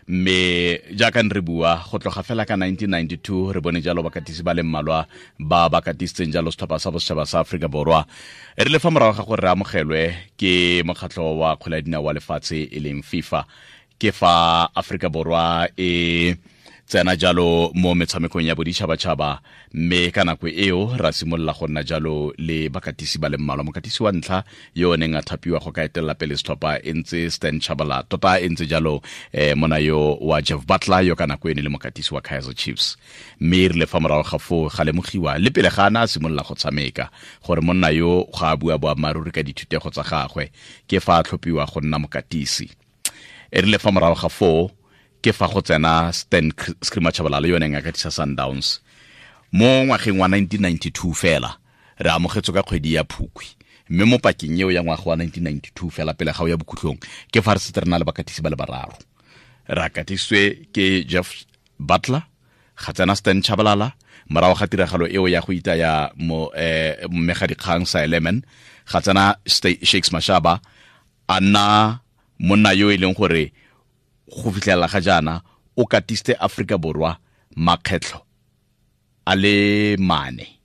Mme jaaka re bua, go tloga fela ka 1992 re bone jalo bakatisi ba le mmalwa ba ba katisitseng jalo setlhopha sa bosetšhaba sa Aforika Borwa. E rile fa morago ga gore re amogelwe ke mokgatlho wa kgwele ya dinao wa lefatshe e leng FIFA, ke fa Aforika Borwa e tsena jalo mo metshamekong ya boditšhabatšhaba, mme ka nako eo ra simolola go nna jalo le bakatisi ba le mmalwa. Mokatisi wa ntlha yo o neng a thapiwa go ka etelela pele setlhopha e ntse Stan Chabala, tota e ntse jalo mona yo wa Jeff Butler, yo ka nako e ne le mokatisi wa Kaizer Chiefs. Mme e rile fa morago ga foo ga lemogiwa le pele ga ana a simolola go tshameka gore monna yo ga a bua boammaaruri ka dithutego tsa gagwe, ke fa a tlhophiwa go nna mokatisi. E rile fa morago ga foo ke fa go tsena Stan Screamer Tshabalala, yo neng a katisa Sundowns mo ngwageng wa 1992. Fela re amogetswe ka kgwedi ya Phukwi, mme mo pakeng eo ya ngwaga wa 1992 fela pele ga o ya bokhutlong ke fa re setse re na le bakatisi ba le bararo. Re akatisitswe ke Jeff Butler, ga tsena Stan Tshabalala morago ga tiragalo eo ya go itaya mo mmegadikgang sa Elemen, ga tsena Shakes Mashaba, a nna monna yo e leng gore go fitlhelela ga jaana o katiste Afrika Borwa makgetlho a le mane.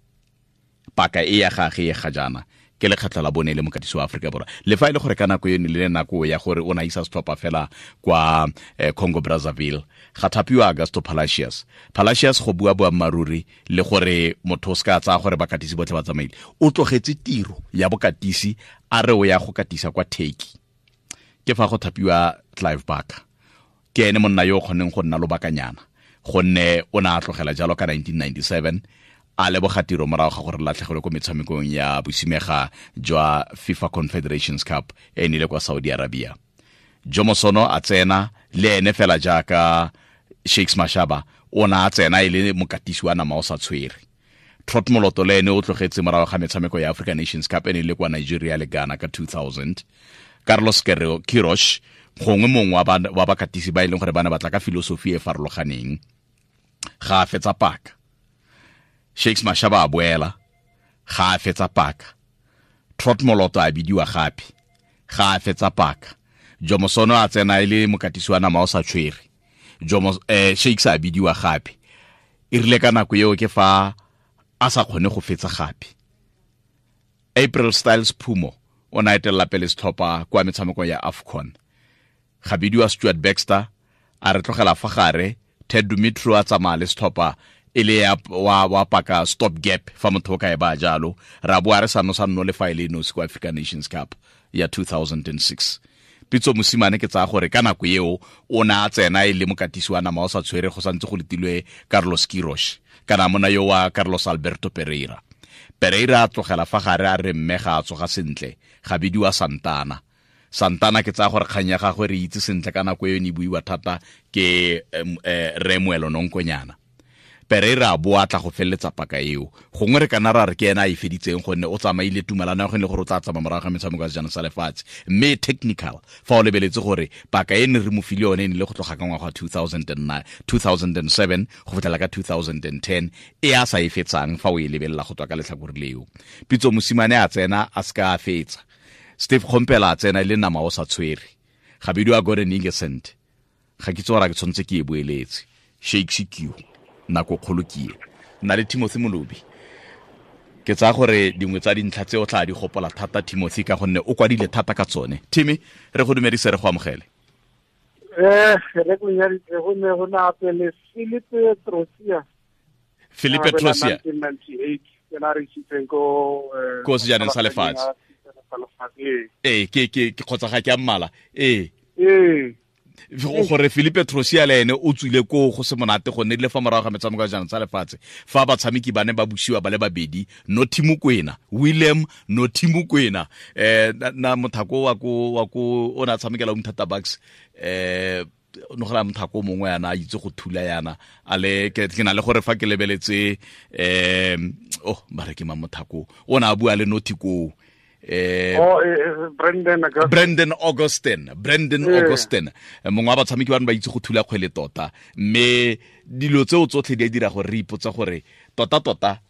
Paka e ya gage e ga jaana ke lekgetlho la bone le mokatisi wa Afrika Borwa, le fa e le gore ka nako eno le nako ya gore o na isa setlhopha fela kwa Congo Brazzaville. Ga thapiwa Augusto Palacios. Palacios, go bua boammaaruri le gore motho o se ka tsaya gore bakatisi botlhe ba tsamaile, o tlogetse tiro ya bokatisi a re o ya go katisa kwa Turkey. Ke fa go thapiwa Clive Barker, ke ene monna yo o kgonneng go nna lobakanyana, gonne o ne a tlogela jalo ka 1997 a leboga tiro morago ga gore latlhegelwe ko metshamekong ya bosimega jwa FIFA Confederations Cup e nile kwa Saudi Arabia. Jomo Sono a tsena le ene fela jaaka Shakes Mashaba, o ne a tsena e le mokatisi wa nama o sa tshwere. Trot Moloto le ene o tlogetse morago ga metshameko ya African Nations Cup e ne le kwa Nigeria le Ghana ka 2000. Carlos Queiroz, gongwe mongwe wa bakatisi ba e leng gore ba ne batla ka filosofi e farologaneng, ga a fetsa paka. Shakes Mashaba a boela, ga a fetsa paka. Trot Moloto a bidiwa gape, ga a fetsa paka. Jomo Sono a tsena e le mokatisi wa nama o sa tshwere. Jomo Shakes a bidiwa gape, e rile ka nako eo ke fa a sa kgone go fetsa gape. April Styles Phumo o ne a etelela pele setlhopha kwa metshamekong ya AFCON. Ga bidiwa Stuart Baxter, a re tlogela fa gare. Ted Dumitru a tsamaya le setlhopha e le ya wa paka stop gap fa motho o ka e ba jalo, ra boa re sa no sa nno le fa e le nosi kwa African Nations Cup ya 2006. Pitso Mosimane, ke tsaya gore ka nako eo o ne a tsena e le mokatisi wa nama o sa tshwere, go santse go letilwe Carlos Queiroz kana mona yo wa Carlos Alberto Pereira. Pereira a tlogela fa gare a re mme ga a tsoga sentle, ga bidiwa Santana. Santana, ke tsaya gore kgang ya gagwe re itse sentle, ka nako eo ne e buiwa thata ke re Moelo Nonkonyana. Pereira a boa tla go feleletsa paka eo, gongwe re kana ra re ke ena a e feditseng, gonne o tsamaile tumalano ya go le gore o tla tsamaya morago ga metshameko ya sejana sa lefatshe. Mme technical fa o lebeletse gore paka e ne re mo file yone e ne le go tloga ka ngwaga wa 2009 2007 go fitlhela ka 2010 e a sa e fetsang, fa o e lebelela go tswa ka letlhakore leo. Pitso Mosimane a tsena, a se ka a fetsa. Steve Kgompela a tsena e le nama o sa tshwere, ga bidiwa Gordon Igesund. Ga ke tse gore ke tshwanetse ke e boeletse. Shakes Q, nako kgolo ke e nna le Timothy Molobi. Ke tsaya gore dingwe tsa dintlha tse o tla di gopola thata, Timothy, ka gonne o kwadile thata ka tsone. Timmy, re go dumedise, re go amogele. Re go nyaditse, go ne go na pele Philippe Trosia. Philippe Trosia. 1998 ke na re isitseng ko ko sejaneng sa lefatshe. Ee, ke kgotsa ga ke a mmala, ee. Gore Philippe Trosia le ene o tswile koo go se monate, gonne le fa morago ga metshameko ya jaanong tsa lefatshe fa batshameki ba ne ba busiwa ba le babedi, Nothi Mokwena, William Nothi Mokwena, na mothako wa ko o ne a tshamekela Umtata Bucks, no gela mothako mongwe yana a itse go thula yana a le ke na le gore fa ke lebeletse, oh, ba re ke mang mothako o ne a bua le Nothi koo? Oh, Brandon Augustin. Brandon Augustin, Brandon Augustin, mongwe wa batshameki ba ne ba itse go thula kgwele tota. Mme dilo tseo tsotlhe di a dira gore re ipotsa gore tota tota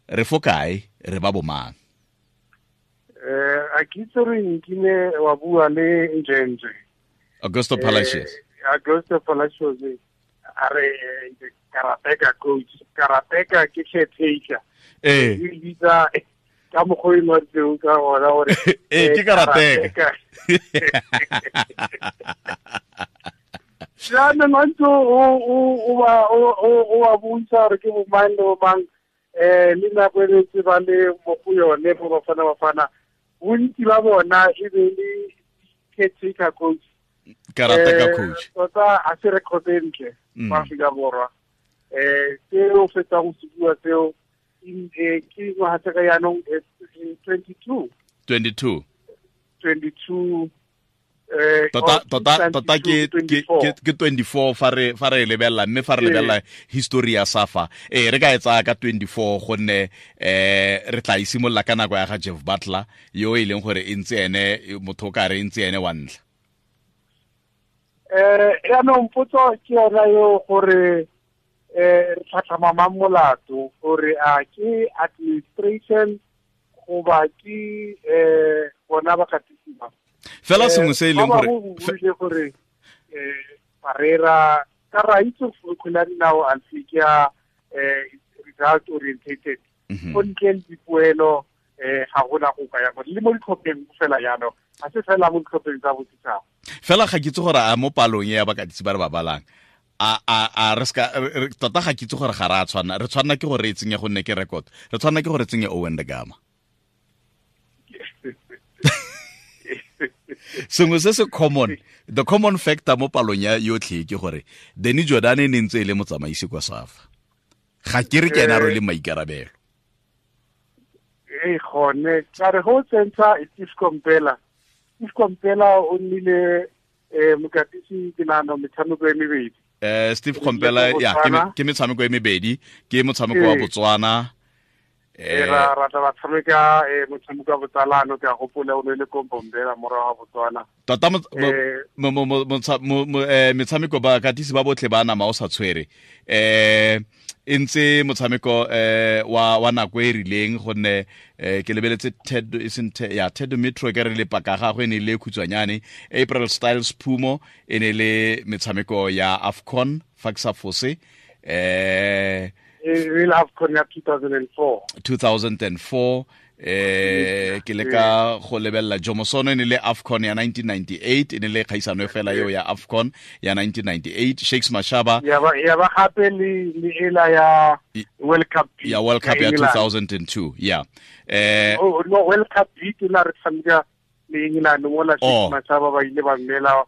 re fo kae, re ba bomang? A ke itse re nkile wa bua le Njenje. Augusto Palacios. Augusto Palacios a re karateka coach, karateka ke caretaker. Ee. E bitsa ka mokgwa o ngwaditseng ka gona gore Ee, ke karateka. Jaanong a ntse o ba bontsha gore ke bomang le bomang, le nako e ntse ba le mo go yone mo Bafana Bafana, bontsi ba bona e be le caretaker coach. Karateka coach. Tota a se record e ntle mo Aforika Borwa. Seo fetsa go se bua seo, ke ngwaga tse ka jaanong, 22. 22. 22. Tota, tota, tota ke ke 24 fa re lebelela, mme fa re lebelela history ya SAFA, re ka e tsaya ka 24, gonne re tla isimolola ka nako ya ga Jeff Butler, yo e leng gore e ntse ene motho o ka re e ntse ene wa ntlha. Yaanong potso ke yona eo gore re tlhatlhama mang molato, gore a ke administration goba ke bona ba katisiwa? Fela sengwe se e leng gore gore gore Parreira ka ra itse kgwele ya dinao alfi ke ya result orientated. Go ntle le dipoelo ga gona go ka ya le mo ditlhopheng fela, jaanong ga se fela mo ditlhopheng tsa bosetšhaba. Fela ga ke itse gore a mo palong e ya bakatisi ba re ba balang, a re ska tota, ga ke itse gore ga re a tshwana, re tshwanna ke gore re e tsenye, gonne ke record, re tshwanna ke gore re tsenye Owen da Gama. Sengwe se se common, the common factor mo palong ya yotlhe ke gore Danny Jordan e ne ntse e le motsamaisi kwa SAFA. Ga ke re ke ena a rwele maikarabelo. Ee, gone ka re go tsentsha Steve Komphela. Steve Komphela o nnile mokatisi, ke nagana metshameko e mebedi. Steve Komphela, ya, ke metshameko e mebedi, ke motshameko wa Botswana. Ra tla ba tshameka motshameko wa botsalano, ke a gopola o ne le ko Bombela morago ga Botswana. Tota metshameko bakatisi ba botlhe ba nama o sa tshwere e ntse motshameko wa nako e rileng, gonne ke lebeletse Ted, e seng ya Ted Metro, ke re le paka gagwe e ne le khutshwanyane. April Styles Phumo e ne le metshameko ya AFCON, fa ke sa fose. E le AFCON ya 2004. 2004. Ke le ka go lebelela Jomo Sono, e ne le AFCON ya 1998, e ne le kgaisano e fela eo ya AFCON ya 1998. Shakes Mashaba. Ya ba gape le ela ya World Cup. Ya World Cup ya 2002, ya. Oh no, World Cup B ke la re tshameka le England mola Shakes Mashaba ba ile ba mmela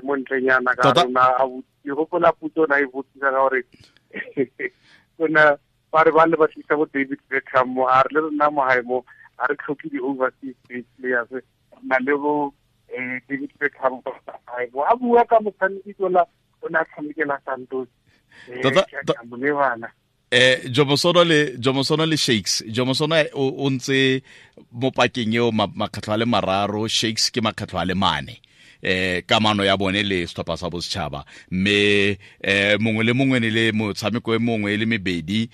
montlenyana ka rona a ke gopola puto na e botsisa ka gore kona ba re ba le ba tlisa bo David Beckham mo, a re le rona mo hae mo a re tlhoke di-overseas based players, re na le bo David Beckham hae mo, a bua ka motshameki tola o ne a tshamekela Santos. Tota Jomo Sono le Shakes, Jomo Sono o ntse mo pakeng eo makgetlho a le mararo, Shakes ke makgetlho a le mane. Kamano ya bone le setlhopha sa bosetšhaba, mme mongwe le mongwe ne le motshameko e mongwe e le mebedi,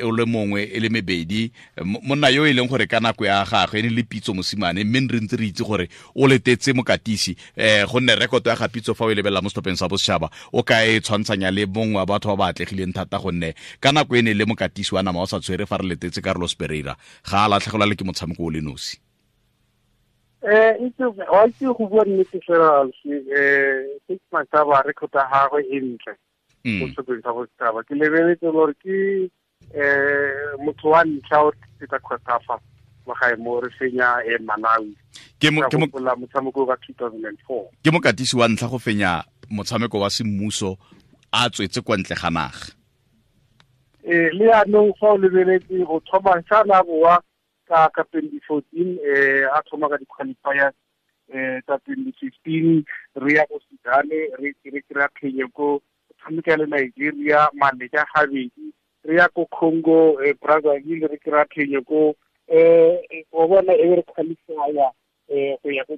o le mongwe e le mebedi. Monna yo e leng gore ka nako ya gagwe e ne le Pitso Mosimane, mme re ntse re itse gore o letetse mokatisi, gonne rekoto ya ga Pitso fa o e lebelela mo setlhopheng sa bosetšhaba, o ka e tshwantshanya le mongwe wa batho ba ba atlegileng thata, gonne ka nako e ne le mokatisi wa nama o sa tshwere fa re letetse Carlos Pereira, ga a latlhegelwa le ke motshameko o le nosi. Itse wa itse go bua nnete fela, Shakes Mashaba record ya gagwe e ntle mo setlhopheng sa bosetšhaba. Ke lebeletse gore ke motho wa ntlha o tlisetsa COSAFA mo gae mo re fenya Malawi. Ke mo gopola motshameko ka 2004. Ke mokatisi wa ntlha go fenya motshameko wa semmuso a tswetse kwa ntle ga naga. Le yaanong fa o lebeletse go thoma sa boa ka 2014, a thoma ka di-qualifiers tsa 2015, re ya ko Sudan, re kry-a phenyo ko, tshameka le Nigeria maleka gabedi, re ya ko Congo Brazzaville, re kry-a phenyo ko, wa bona, e be re qualifya go ya ko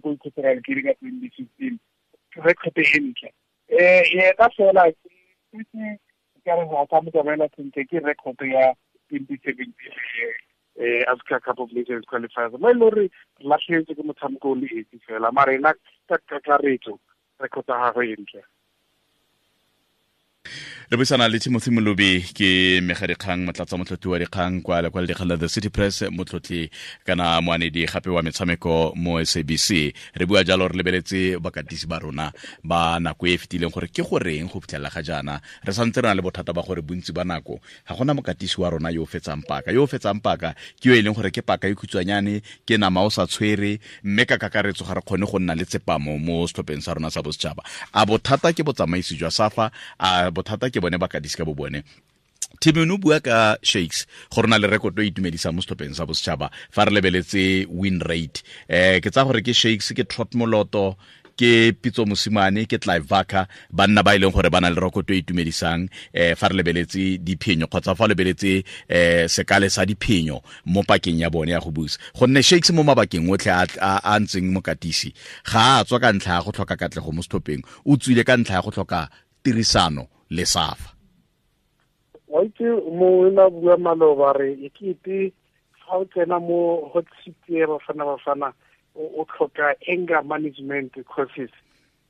Equatorial Guinea ka 2015. Record e ntle yena fela ke ka re ga sa mo tsamaela sentle ke record ya 2017 Africa Cup of Nations qualifiers, mo e le gore re latlhegetswe ke motshameko o le esi fela, mara ena ka kakaretso. Record ya gagwe e ntle. Re buisana le Timothy Molobi, ke megadikgang, motlatsa motlotli wa dikgang kwa lekwalo dikgang la The City Press, motlotli kana moanedi gape wa metshameko mo SABC. Re bua jalo re lebeletse bakatisi ba rona ba nako e e fetileng, gore ke goreng go fitlhelela ga jaana re santse re na le bothata ba gore bontsi ba nako ga gona mokatisi wa rona yo o fetsang paka. Yo o fetsang paka ke yo e leng gore ke paka e khutshwanyane, ke nama o sa tshwere, mme ka kakaretso ga re kgone go nna le tsepamo mo setlhopheng sa rona sa bosetšhaba. A bothata ke botsamaisi jwa SAFA? A bothata ke bone bakatisi ka bo bone? Timon, o bua ka Shakes go rena le rekoto e itumedisang mo setlhopheng sa bosetšhaba fa re lebeletse win rate. Ke tsa gore ke Shakes, ke Trot Moloto, ke Pitso Mosimane, ke Clive Barker, banna ba e leng gore ba na le rekoto e itumedisang fa re lebeletse diphenyo kgotsa fa lebeletse sekale sa diphenyo mo pakeng ya bone ya go busa. Gonne Shakes mo mabakeng otlhe a ntseng mokatisi, ga a tswa ka ntlha ya go tlhoka katlego mo setlhopheng, o tswile ka ntlha ya go tlhoka tirisano le SAFA. Wa itse, mongwe na bua maloba re e kete fa o tsena mo hot seat ya Bafana Bafana, o tlhoka anger management courses,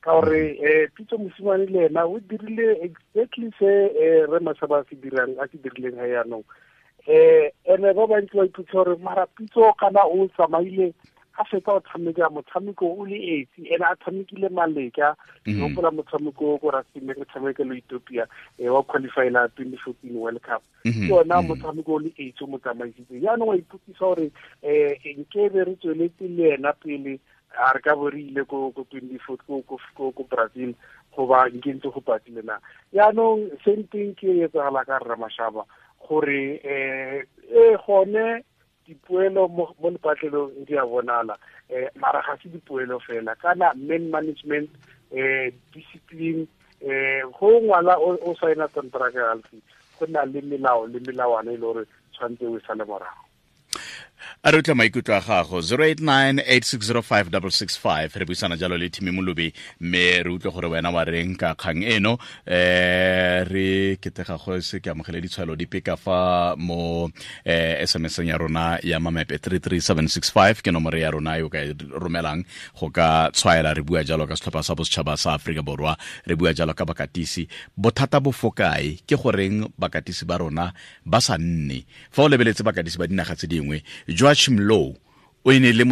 ka gore Pitso Mosimane le ena o dirile exactly se re Mashaba a se dirang, a se dirileng ga yaanong. Ene ba bantsi ba ipotsa gore mara Pitso kana o tsamaile a fetsa go tshameka motshameko o le esi, ene a tshamekile maleka. Ke gopola motshameko ko Rustenburg, re tshameka le Ethiopia wa qualifyela 2014 World Cup. Ke ona motshameko o le esi o mo tsamaisitse. Jaanong wa ipotsisa gore nkebe re tsweletse le ena pele, a re ka bo re ile ko 24 ko Brazil, goba nke ntse go patile na? Jaanong same thing ke e etsagala ka rra Mashaba, gore e gone dipoelo mo lepatlelong di a bonala, mara ga se dipoelo fela, kana man management, discipline. Go ngwala o saena contract alfi, go na le melao le melawana e le gore tshwanetse o e sale morago. A re utlwa maikutlo a gago, 089 860 5665. Re buisana jalo le Thimi Molobi, mme re utlwe gore wena wa reng ka kgang eno. Re ketega go se ke amogele ditshwaelo dipe ka fa mo SMS ya rona ya mamepe. 33765 ke nomoro ya rona e o ka e romelang go ka tshwaela. Re bua jalo ka setlhopha sa bosetšhaba sa Aforika Borwa, re bua jalo ka bakatisi. Bothata bo fokae? Ke goreng bakatisi ba rona ba sa nne? Fa o lebeletse bakatisi ba dinaga tse dingwe, Joachim Low o e ne le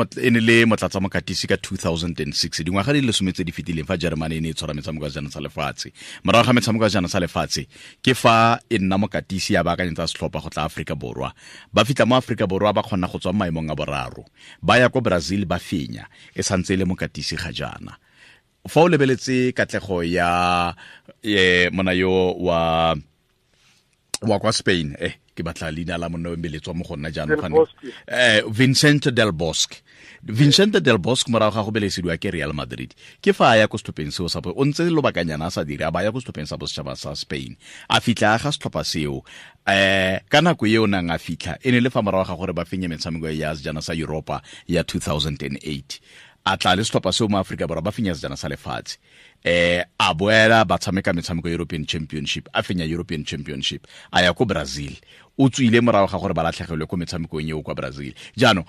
motlatsa mokatisi ka 2006, dingwaga di le 10 tse di fetileng, fa Germany e ne e tshwara metshameko ya sejana sa lefatshe. Morago ga metshameko ya sejana sa lefatshe ke fa e nna mokatisi, ya baakanyetsa setlhopha go tla Aforika Borwa. Ba fitlha mo Aforika Borwa, ba kgona go tswa mo maemong a boraro, ba ya ko Brazil, ba fenya. E santse e le mokatisi ga jaana. Fa o lebeletse katlego ya mona yo wa kwa Spain, ke batla leina la monna o mbeletswa mo go nna jaanong, Vincent Del Bosque. Vincent Del Bosque, morago ga go belesediwa ke Real Madrid, ke fa a ya ko setlhopheng seo sa, o ntse lobakanyana a sa dire, a ba ya ko setlhopheng sa bosetšhaba sa Spain, a fitlha a ga setlhopha seo. Ka nako eo nang a fitlha, e ne le fa morago ga gore ba fenye metshameko ya sejana sa Europa ya 2008. A tla le setlhopha seo mo Aforika Borwa, ba fenya sejana sa lefatshe. A boela, ba tshameka metshameko European Championship, a fenya European Championship. A ya ko Brazil, o tswile morago ga gore ba latlhegelwe ko metshamekong eo kwa Brazil. Jaanong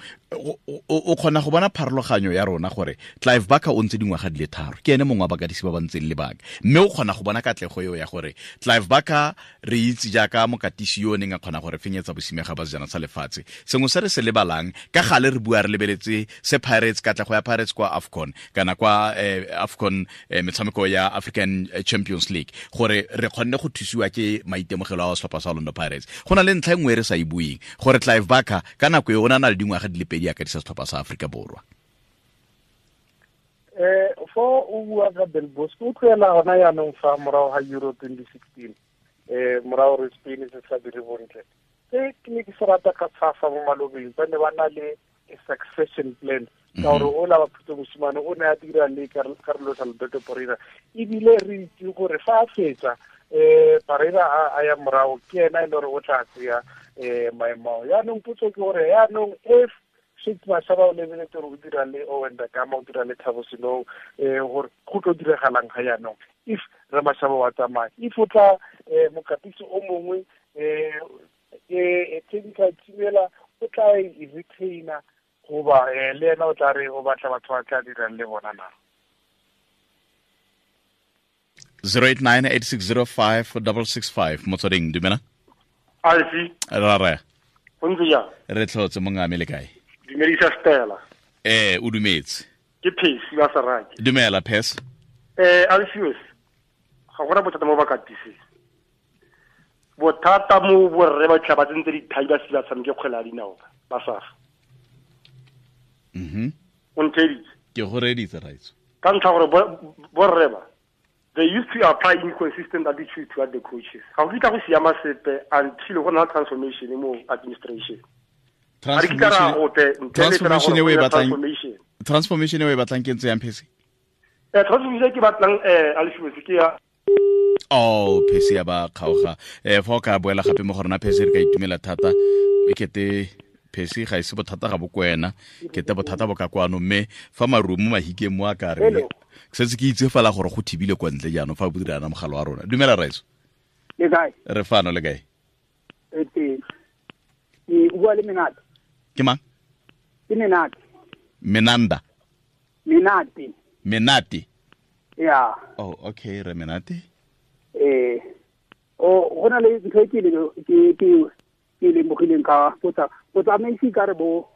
o kgona go bona pharologanyo ya rona, gore Clive Barker o ntse dingwaga di le 3, ke ene mongwe wa bakatisi ba ba ntseng lebaka, mme o kgona go bona katlego eo ya gore Clive Barker re itse jaaka mokatisi yo o neng a kgona gore fenyetsa bosimega ba sejana sa lefatshe. Sengwe se re se lebalang ka gale, re bua re lebeletse se Pirates, katlego ya Pirates kwa AFCON kana kwa AFCON, metshameko ya African Champions League, gore re kgonne go thusiwa ke maitemogelo a setlhopha sa Orlando Pirates. Go na le ntlha e nngwe e re sa e bueng, gore Clive Barker ka nako e o na le dingwaga di le 2 a katisa setlhopha sa Aforika Borwa. Fo o bua ka Del Bosque, o tloela gona yaanong fa morago ga Euro 2016, morago re Spain se sa dire bontle. Se ke ne ke se rata ka SAFA mo malobeng, ba ne ba na le a succession plan, ka gore o la ba Pitso Mosimane o ne a dira le Carlos Alberto Parreira, ebile re itse gore fa a fetsa Parreira a ya morago, ke ena e le gore o tla tseya maemo ao. Yaanong potso ke gore yaanong if Shakes Mashaba, o lebeletse gore o dira le Owen Da Gama, o dira le Thabo Senong, gore go tlo diragalang ga yaanong if re Mashaba wa tsamaya, if o tla mokatisi o mongwe, technical team ela o tla e retaina, goba le ena o tla re o batla batho ba tla dirang le bona na? 089 8605 665. Motsweding, dumela. Alfi. Ra raya. Go ntse jang? Re tlhotse, mongame, le kae? Dumedisa Stella. Ee, o dumetse. Ke Phesi wa Saraki. Dumela, Phes. Alfios, ga gona bothata mo bakatiseng. Bothata mo borre ba tla ba tsentse dithai ba se ba tshameke kgwele ya dinao ba safa. O ntheeditse? Ke go reeditse, raitso. Ka ntlha gore borre ba, they used to apply inconsistent attitude toward the coaches. Ga go kitla go siama sepe until go na transformation mo administration. Ga re kitla ra gope ntle le fela Transformation gore e o e go nne batlang? transformation. Transformation e o e batlang ke ntse yang, Phesi? Transformation e ke batlang, Alfios, ke ya Oh, Phesi ya ba kgaoga. Fa o ka boela gape mo go rona, Phesi, re ka itumela thata. E kete Phesi ga ise bothata ga bo ko wena, kete bothata bo ka kwano, mme fa marumo mahikeng mo a ka re Hello. setse ke itse fela gore go thibile kwa ntle. Jaanong fa bo dirana mogala wa rona. Dumela, raitso. Le kae? Re fano, le kae? E teng. Ke o bua le Menate. Ke mang? Ke Menate. Menanda? Menate. Menate. Ya. Oh, okay, re Menate. O go na le ntho e ke le ke ke ke lemogileng ka botsa botsamaisi ka re bo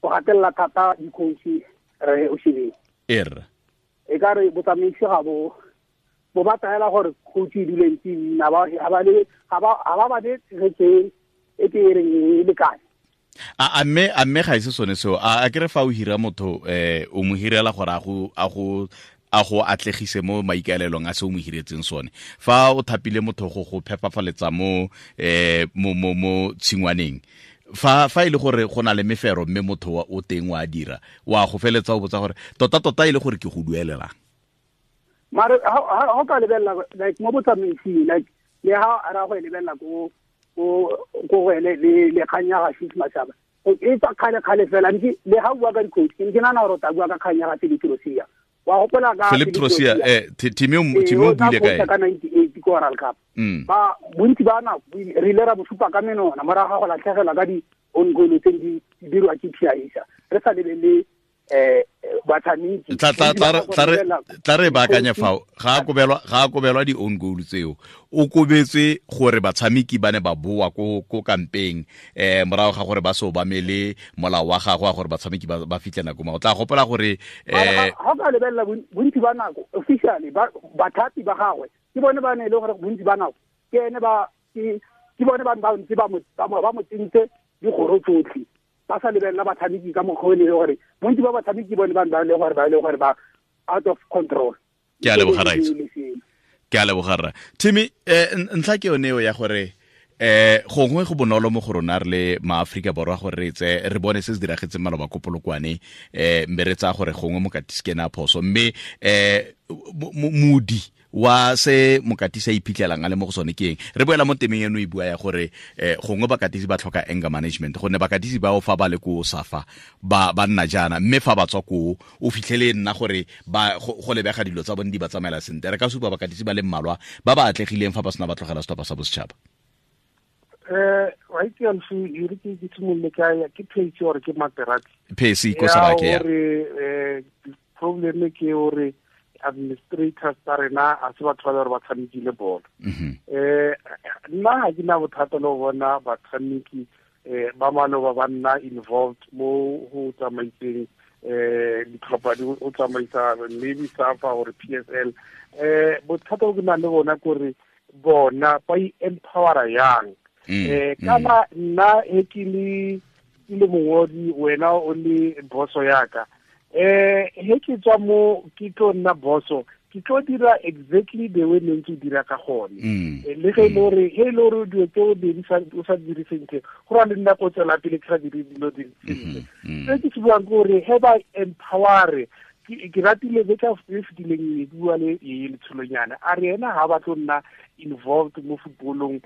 go gatelela thata di-coach, re o shebeng. Er. E ka re botsamaisi ga bo bo ba taela gore coach e dule ntse e nna ba ga ba le ga ba ba le tshegetso e ke e reng e lekane. A mme ga ise sone seo? A ke re fa o hira motho, o mo hirela gore a go atlegise mo maikaelelong a se o mo hiretseng sone. Fa o thapile motho go phepafaletsa mo eh mo mo mo tshingwaneng, fa e le gore go na le mefero, mme motho wa o teng wa dira, wa go feletsa o botsa gore tota tota e le gore ke go duelelang. Mare ha o ka lebelela, like, mo botsamaising, like, le ha ra go e lebelela ko go ene le kgang ya ga Chiefs Mashaba e tswa kgale kgale fela ntse. Le ha o bua ka di-coach, ke ne ke nagana gore o tla bua ka kgang ya ga Philip Trosia. Wa gopola ka Philip Trosia? Timi o o tla buile ka coacha ene ka 98 ko World Cup. Ba bontsi ba nako re ile ra bo supa ka menona morago ga go latlhegelwa ka di-own goal tse di dirwa ke Piaisa, re sa lebelele batshameki. Tla re baakanye fao. Ga a kobelwa di-own goal tseo, o kobetswe gore batshameki ba ne ba boa ko kampeng morago ga gore ba se obamele molao wa gagwe wa gore batshameki ba fitlhe nako ma o tla gopola gore Ga o ka lebelela bontsi ba nako, officially bathapi ba gagwe ke bone ba ne e le gore bontsi ba nako ke ene ba ke bone ba ba ntse ba mo tsentse dikgoro tsotlhe, ba sa lebelela batshameki ka mokgwa o e le gore bontsi ba batshameki bone ba ne ba le gore ba out of control. Ke a leboga, Raitso. Le seno. Ke a leboga, rra Timmy. Ntlha ke yone eo ya gore gongwe go bonolo mo go rona re le maaforika Borwa gore re tse re bone se se diragetseng maloba ko Polokwane, mme re tsaya gore gongwe mokatisi ke ene a phoso, mme modi wa se mokatisi a iphitlhelang a le mo go sone ke eng? Re boela mo temeng eno e bua ya gore gongwe bakatisi ba tlhoka anger management, gonne bakatisi bao fa ba le ko Safa ba nna jaana, mme fa ba tswa koo o fitlhele nna gore ba go lebega dilo tsa bone di ba tsamaela sentle. Re ka supa bakatisi ba le mmalwa ba ba atlegileng fa ba sena ba tlogela setlhopha sa bosetšhaba. Wa itse, Alfi, e re ke simolole ka ya ke Phesi gore ke Materati? Phesi ko Sarake, ya. Gore problem ke gore administrators tsa rena a se batho ba le gore ba tshamekile bolo. Nna ga ke na bothata le go bona batshameki ba maloba ba nna involved mo go tsamaiseng ditlhopha di o tsamaisa maybe SAFA or PSL. Bothata bo ke nang le bona kore bona ba i-empowera yang? Kana nna he ke le mongodi, wena o le boso yaka, he ke tswa mo ke tlo nna boso, ke tlo dira exactly the way ne ntse o dira ka gone. Le ge e le gore he e le gore dilo tse o dirisa o sa dire sentle, go ra le nna ko tswela pele ke sa dire dilo di sentle. Se ke se buang ke gore he ba empowere. Ke ratile beka e fetileng e bua le e letsholonyana, a re ena ga ba tlo nna involved mo footballong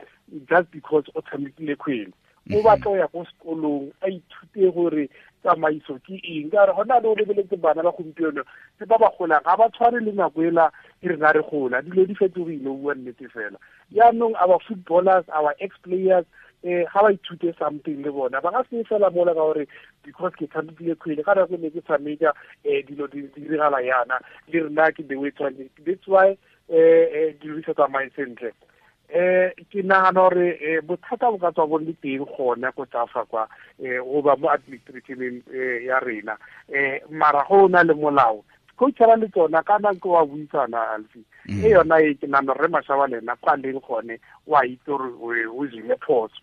just because o tshamekile kgwele. O batla go ya ko sekolong a ithute gore tsamaiso ke eng, ka gore gona le o lebeletse bana ba gompieno tse ba ba golang ga ba tshwane le nako ela e rena re gola. Dilo di fetogile, o bua nnete fela. Yaanong our footballers, our ex players, ga ba ithute something le bona, ba ka se fela mola ka gore because ke tshamekile kgwele ka nako e ne ke tshameka, dilo di diragala yana le rena ke the way tshwanetse. That's why Dilo di sa tsamaye sentle. Ke nagana gore bothata bo ka tswa bo le teng gone ko tsafa kwa goba mo administrationeng ya rena, mara go na le molao coachara le tsona ka nako wa buisana Alfi. E yona e ke nagana re Mashaba le ena kwa leng gone wa itse gore o dirile phoso.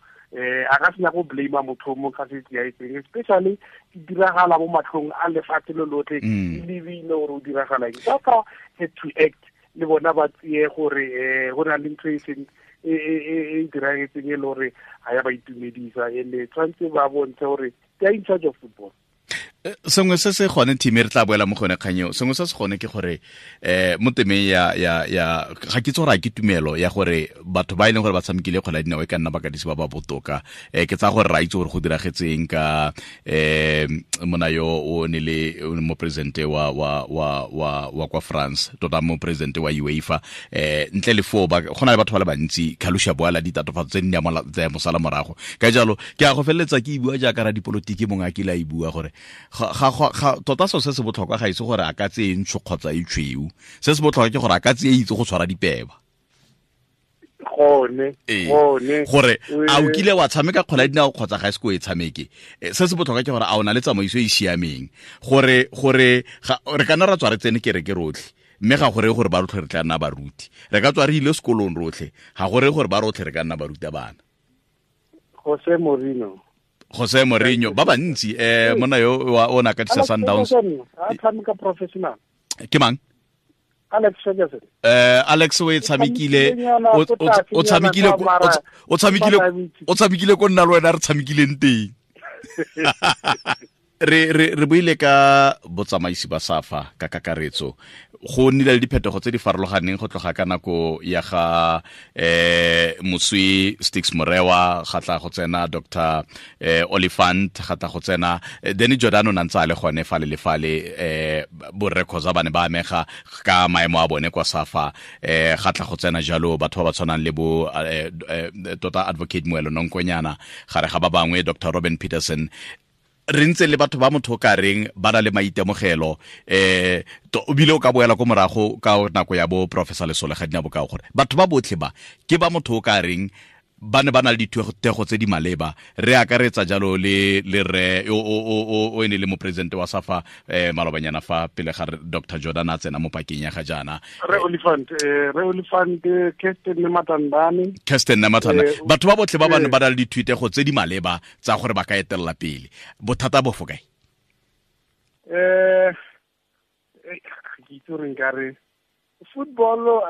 A ka senya go blame motho mo ka se etseng, especially di diragala mo matlhong a lefatshe lo lotlhe, e lebile gore o diragala eng. Ka had to act le bona ba tseye gore go na le ntho e seng e diragetseng e le gore ga ya ba itumedisa, ene tshwanetse ba bontshe gore they are in charge of football. Sengwe se se gone team re tla boela mo gone kganyeo, sengwe se se gone ke gore mo temeng ya ga ke tsora ke tumelo ya gore batho ba e leng gore ba tshamekile kgwele ya dinao e ka nna bakatisi ba ba botoka. Ke tsa gore ra itse gore go diragetseng ka mona yo o ne le mo presidente wa kwa France, tota mo presidente wa UEFA, ntle le foo go na le batho ba le bantsi Kalusha Boala ditatofatso tse di tsa mosala morago. Ka jalo ke a go feleletsa ke e bua jaaka ra dipolotiki mongwe a kile a e bua gore tota so se se botlhokwa ga ise gore a ka tseye ntsho kgotsa e tshweu, se se botlhokwa ke gore a ka tseye itse go tshwara dipeba. Gone gore a o kile wa tshameka kgwele ya dinao kgotsa ga e se ko e tshameke, se se botlhokwa ke gore a o na le tsamaiso e e siameng, gore re ka nna ra tswa re tsene kereke rotlhe, mme ga gore gore ba rotlhe re tla nna baruti, re ka tswa re ile sekolong rotlhe, ga gore gore ba rotlhe re ka nna baruta bana. Jose Mourinho ba bantsi monna yo o na katisa Sundowns a tshameka professional ke mang? Alex Ferguson. Alex o e tshamekile, o tshamekile ko nna le wena re tshamekileng teng. Re buile ka botsamaisi ba SAFA ka kakaretso, go nnile le diphetogo tse di farologaneng go tloga ka nako ya ga Moswi Stix Morewa, ga tla go tsena Dr. Oliphant, ga tla go tsena Danny Jordan o ntse a le gone fale le fale, borre Khoza ba ne ba amega ka maemo a bone kwa SAFA, ga tla go tsena jalo batho ba ba tshwanang le bo tota Advocate Moelo Nonkonyana, gare ga ba bangwe Dr. Robin Peterson. Re ntse le batho ba motho ka reng ba na le maitemogelo, o bile o ka boela ko morago ka nako ya bo Professor Lesole ga dina bokao, gore batho ba botlhe ba ke ba motho ka reng ba ne ba na le dithutego tse di maleba. Re akaretsa jalo le re o ene le mopresidente wa SAFA malobanyana fa pele ga Dr. Jordan a tsena mo pakeng ya ga jaana, Re Oliphant, Kirsten Nematandani, batho ba botlhe ba ba ne ba na le dithutego tse di maleba tsa gore ba ka etelela pele. Bothata bo fo kae? Ke itse gore nkare football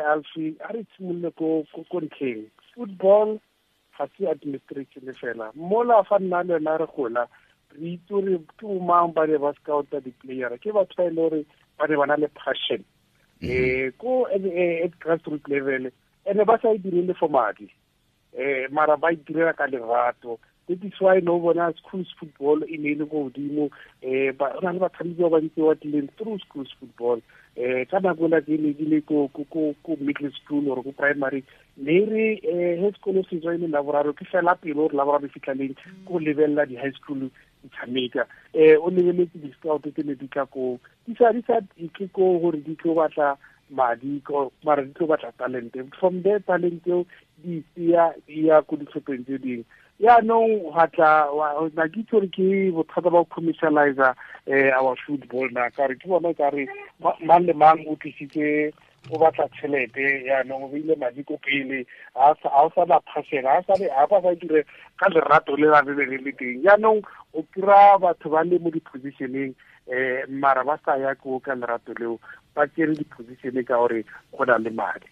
Alfi a re tshimolole ko ntlheng. Football ga se administration fela, mola fa nna le wena re gola re itse gore ke bomang ba ne ba scouta di-player, ke batho ba e le gore ba ne ba na le passion ko at grassroot level, ene ba sa e direle for madi, mara ba e direla ka lerato. That is why no bona schools football e ne e le ko godimo, ba na le batshameki ba bantsi ba tlileng through schools football. Ka nako ela ke ne ke le ko middle school or ko primary, ne re he sekolo se tswa e le laboraro, ke fela pele gore laboraro e fitlha leng ko lebelela di-high school di tshameka. O lebeletse di-scout tse ne di tla ko di sa itle ko gore di tlo batla madi, mara di tlo batla talente. From there talente eo di tseya ya ko ditlhopheng tse dingwe. Yaanong ga tla na ke itse gore ke bothata ba go commercialize our football na, ka gore ke bona ka re mang le mang o tlisitse o batla tšhelete, yaanong o beile madi ko pele, ga o sa na passion, ga ba sa dire ka lerato le la be le le teng. Yaanong o kry-a batho ba le mo di-positioneng, mara ba sa ya ko ka lerato leo, ba tsere di-position ka gore go na le madi.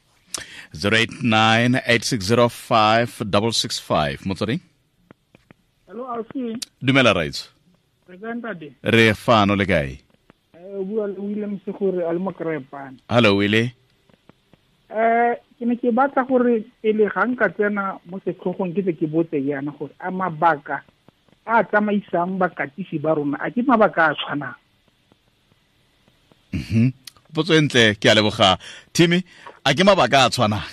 089 8605 665. Motswedi? Hello, Alfi. Dumela Raitso. Re kae ntate? Re fano, le kae? O bua le William Segore a le mo Krepane. Hello Willie. Ke ne ke batla gore pele ga nka tsena mo setlhogong ke tle ke botse yana gore a mabaka a tsamaisang bakatisi ba rona a ke mabaka a tshwanang? Potso e ntle, ke a leboga. Timmy, a ke mabaka a tshwanang?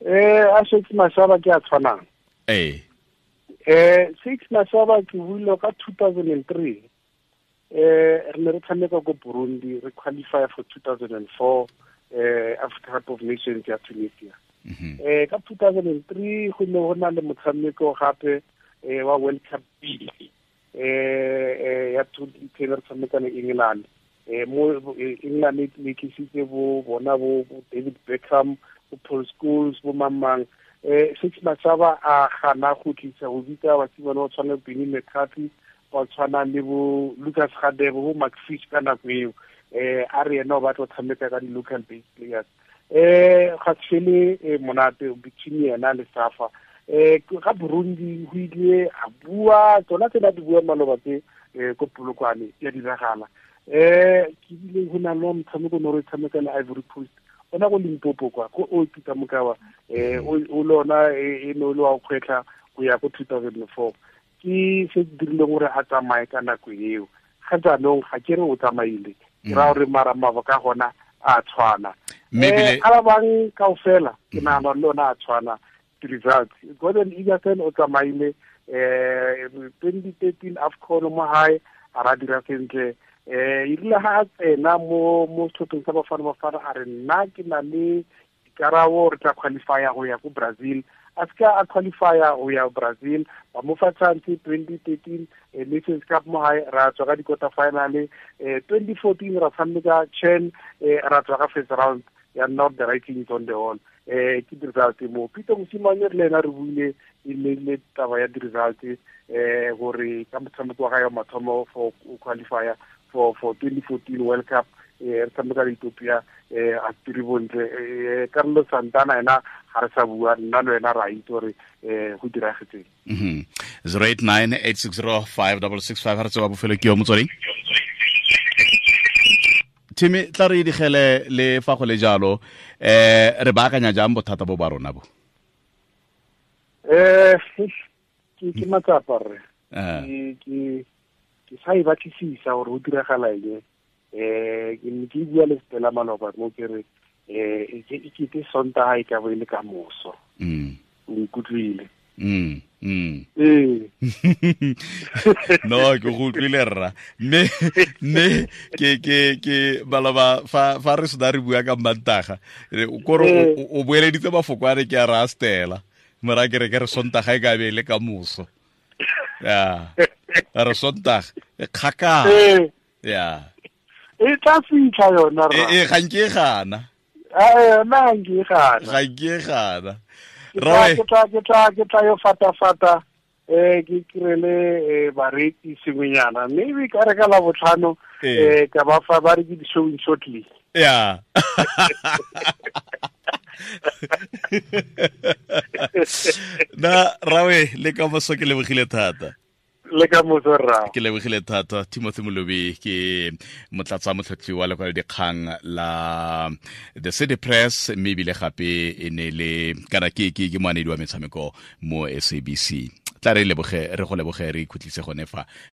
A Shakes Mashaba ke a tshwanang. Shakes Mashaba ke buile ka 2003. Re ne re tshameka ko Burundi, re qualify for 2004. Africa Cup of Nations ya Tunisia. Ka 2003 go ne go na le motshameko gape wa World Cup B ya 2010 re tshameka le England. Mo England e tlisitse bo bona bo David Beckham, bo Paul Scholes, bo mang. Six Mashaba a gana go tlisa go bitsa basimane ba tshwana le Benny McCarthy, ba tshwana le bo Lucas Radebe, bo Mark Fish ka nako eo. A re ena o batla go tshameka ka di-local based players. Ga se fele monate between yena le Safa. Ga Burundi go ile a bua tsona tse di bua maloba tse ko Polokwane ya diragala. Ke bile go na le motshameko no re tshameka le Ivory Coast ona go Limpopo kwa ko o Peter Mokawa, o lona e no le wa kgwetlha go ya ko 2004. Ke se dirileng gore a tsamaye ka nako eo. Ga jaanong ga ke re o tsamaile, ke ra gore mara mabaka gona a tshwana. A ba bang kaofela ke nahana le ona a tshwana results. Gordon Igesund o tsamaile 2013 AFCON mo hae a ra dira sentle. E rile ha a tsena mo setlhopheng sa Bafana Bafana a re nna ke na le dikarabo, re tla qualifya go ya ko Brazil. A seka a qualifya go ya Brazil, ba mo fa chance 2013 Nations Cup mo hae ra tswa ka di-quarter final. 2014 ra tshameka CHAN, ra tswa ka first round, ya not the writing is on the wall. Ke di-result mo Peter Mosimane re le ena re buile e ne le taba ya di-result, gore ka motshameko wa gae wa mathomo for qualifier for 2014 World Cup, re tshameka le Ethiopia, a tiri bontle. Carlos Santana ena ga re sa bua, nna le wena ra itse gore go diragetseng. 089 860 5665 ga re tsewa bofelo ke yo motsweding. Timmy, tla re digele le fa go le jalo, re baakanya jang bothata bo ba rona bo? Ke matsapa rre. Ke sa e batlisisa gore go diragala eng. Ke ne ke bua le Stella maloba mo ke re e kete Sontaga e ka bo e le ka moso. O nkutlwile? Ee. No, ke go utlwile rra, mme ke baloba fa re sena re bua ka Mmantaga kore o boeleditse mafoko a re ke a ra Stella mora ke re ke re Sontaga e ka be e le ka moso, ya re Sontaga e kgakala ya. E tla fitlha yona rra. E ga nke e gana. Yona ga nke e gana. Ga nke e gana. Ke tla yo fata-fata, ke kirele bareki sengwenyana, maybe ka re ka la botlhano, ka ba fa ba re ke di-showing shortly. Ya na rawe, le ka moso, ke lebogile thata. Le ka moso rra. Ke lebogile thata. Timothy Molobi ke motlatsa motlhotlhi wa lekwalo dikgang la The City Press, mme ebile gape e ne le kana ke moanedi wa metshameko mo SABC. Tla re leboge, re go leboge, re ikhutlise gone fa.